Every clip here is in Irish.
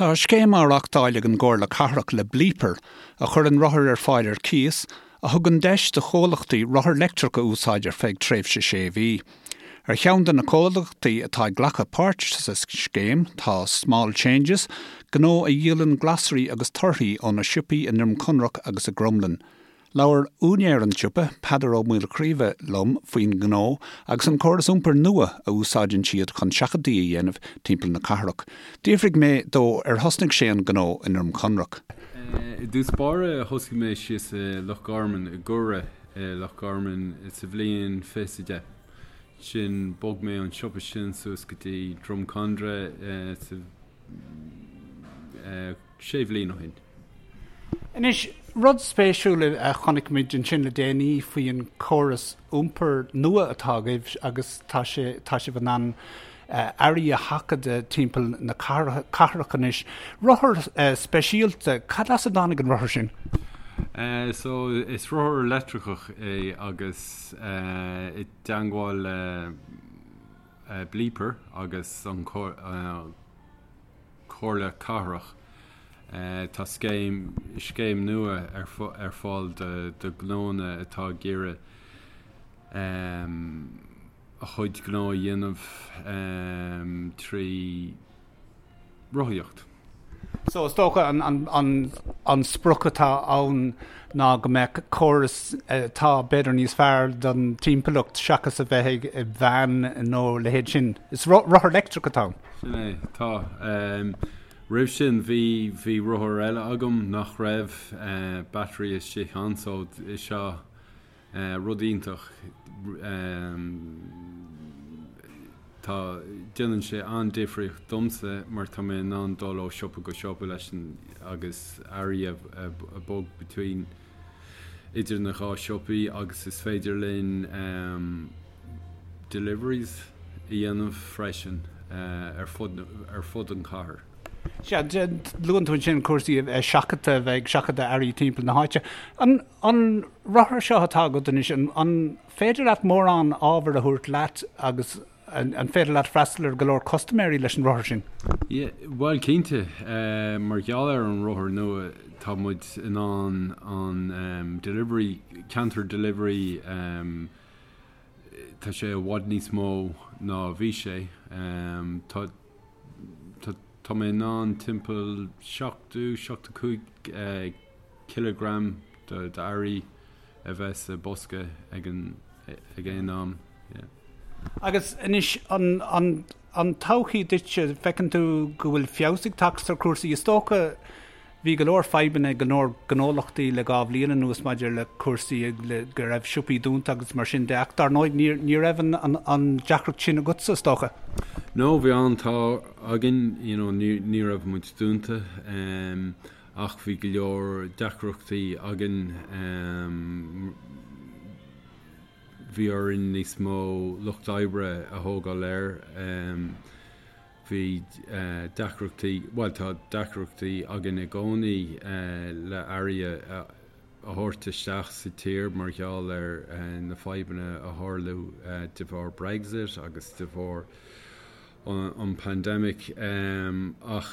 Tá scéim á reachtáil ag an gComhairle Cathrach le Bleeper, a chuireann rothair ar fáil ar cíos, a thugann deis do chomhlachtaí rothar leictreach a úsáid ar feadh tréimhse sé mhí. Ar cheann de na comhlachtaí atá ag glacadh páirt sa scéim tá Small Changes, gnó a dhíolann glasraí agus torthaí óna siopaí i nDroim Conrach agus i gCromghlinn. Labhair úinéir an tsiopa, Peadar Ó Maolchraoibhe, liom faoin ngnó agus an córas iompair nua a úsáideann siad chun seachadtaí a dhéanamh timpeall na cathrach. D'fhiafraigh mé dó ar thosnaigh sé an gnó i nDroim Conrach. I dtús báire thosaigh mé síos i Loch Garman, i gCora i Loch Garman sa bhliain 2010. Ansin bhog mé an siopa sin suas go dtí Droim Conrach sa sé bhliain ó shin. Anois, rud spéisiúil a chonaic muid ansin le déanaí faoi an córas iompair nua atá agaibh agus tá sé, tá sibh in ann earraí a sheachadadh timpeall na cathrach anois. Rothar speisialta, cad as a dtáinig an rothar sin? So, is rothar leictreachach é agus i dteangmháil le Bleeper agus an Comhairle Cathrach. Tá scéim scéim nua ar fáil do ghnónna atá ag iarraidh a chuid gnó a dhéanamh trí rothaíocht. So is dócha an sprioc atá ann ná go mbeadh córas atá b'fhéidir níos fearr don timpeallacht seachas a bheith ag veain nó a leithéid sin. Is rothar leictreach atá ann. Sin é, tá. Roimh sin bhí bhí rothar eile agam nach raibh battery istigh ann so is seo Rud iontach. Tá, déanann sé an-difríocht domsa mar tá mé in ann dul ó siopa go siopa leis an agus earraí a bog between idir na dhá siopaí agus is féidir linn deliveries a dhéanamh freisin ar fud ar fud an chathair. Sea, luann tú ansin cúrsaí seachadta, a bheith ag seachadadh earraí timpeall na háite. An An rothar seo atá agat anois, an féidir leat mórán ábhair a thabhairt leat agus an féidir leat freastal ar go leor custaiméirí leis an rothar sin? Yeah, bhuel cinnte. Mar gheall ar an rothar nua tá muid in ann an delivery, counter delivery, tá sé i bhfad níos mó ná a bhí sé. Tá, tá, tá mé in ann timpeall 70, 75 cileagram d'earraí a bheith sa bosca ag an ag aon am. Yeah. Agus anois an an an todhchaí duitse, feiceann tú go bhfuil feabhas ag teacht ar chúrsaí? Is dócha bhí go leor fadhbanna ag go leor gnólachtaí le 2 bhliain anuas maidir le cúrsaí le go raibh siopaí dúnta agus mar sin de ach dar ndóigh ní ní raibh an an an deacracht sin agatsa is dócha. No, bhí an-t-ádh againn, you know, ní ní raibh muid dúnta. Um, Ach bhí go leor deacrachtaí againn. Bhí orainn níos mó lucht oibre a thógáil air. Bhí deacrachtaí, bhuel tá deacrachtaí againn i gcónaí le earraí a thabhairt isteach sa tír mar gheall ar na fadhbanna a tharla de bharr Brexit agus de bharr an pandemic. Ach.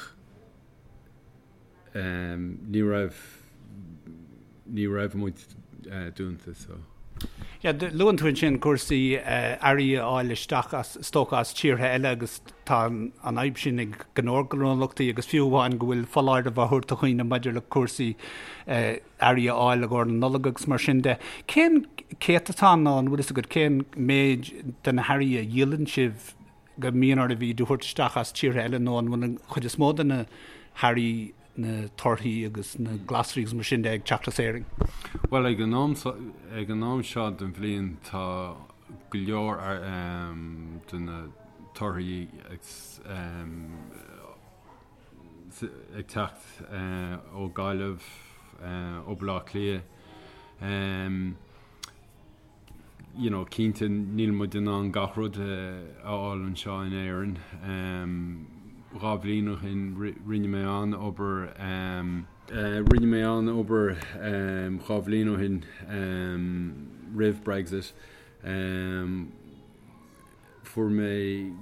Ní raibh, ní raibh muid dúnta so. Yeah, luann tú ansin cúrsaí earraí a fháil isteach as, is dócha as tíortha eile agus tá an fhadhb sin ag go leor gnólachtaí agus fiú amháin go bhfuil foláireamh á thabhairt do dhaoine maidir le cúrsaí earraí a fháil i gcomhair na Nollag agus mar sin de. Cén céatadán nó an bhfuil fhios agat cén méid de na hearraí a dhíolann sibh go mbíonn oraibh iad a thabhairt isteach as tíortha eile nó an bhfuil an chuid is mó de na hearraí, na torthaí agus na glasraí agus mar sin de ag teacht as Éirinn? Bhuel, ag an am, ag an am seo den bhliain tá go leor de na torthaí ag teacht ó Gaillimh, ó Baile Átha Cliath. You know, cinnte níl muid in ann gach rud a fháil anseo in Éirinn. 2 bhliain ó shin rinne mé an-obair, rinne mé an-obair 2 bhliain ó shin roimh Brexit. Fuair mé,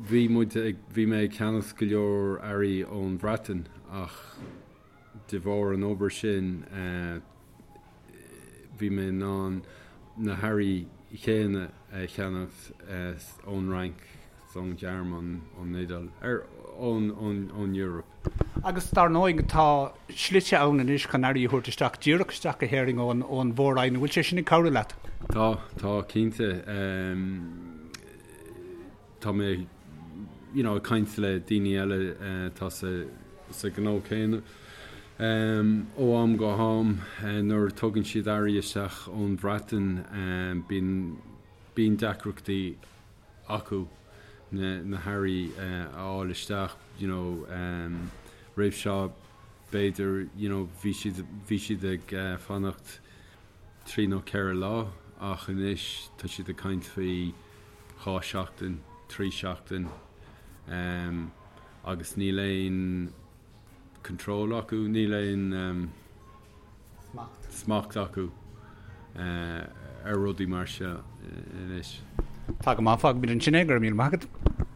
bhí muid ag, bhí mé ag ceannacht go leor earraí ón Bhreatain Ach de bharr an obair sin bhí mé in ann na hearraí chéanna a cheannacht ón Fhrainc, ón Ghearmáin, ón Iodáil, ón ón Eoraip. Agus dar ndóigh tá slite ann anois chun earraí a thabhairt isteach díreach isteach go hÉirinn ón ón Mhór-Roinn. An bhfuil sé sin ag cabhrú leat? Tá, tá cinnte. Tá mé you know ag caint le daoine eile atá sa sa ghnó céanna. Ó am go ham nuair a tugann siad earraí isteach ón Bhreatain bíonn bíonn deacrachtaí acu na na hearraí a fháil isteach you know roimh seo b'fhéidir you know bhí siad bhí siad ag fanacht 3 nó 4 lá ach anois tá siad ag caint faoi 2 seachtain, 3 seachtain agus níl aon control acu, níl aon smacht acu ar rudaí mar seo anois. Tá go maith, fágfaimid ansin é, go raibh míle maith agat.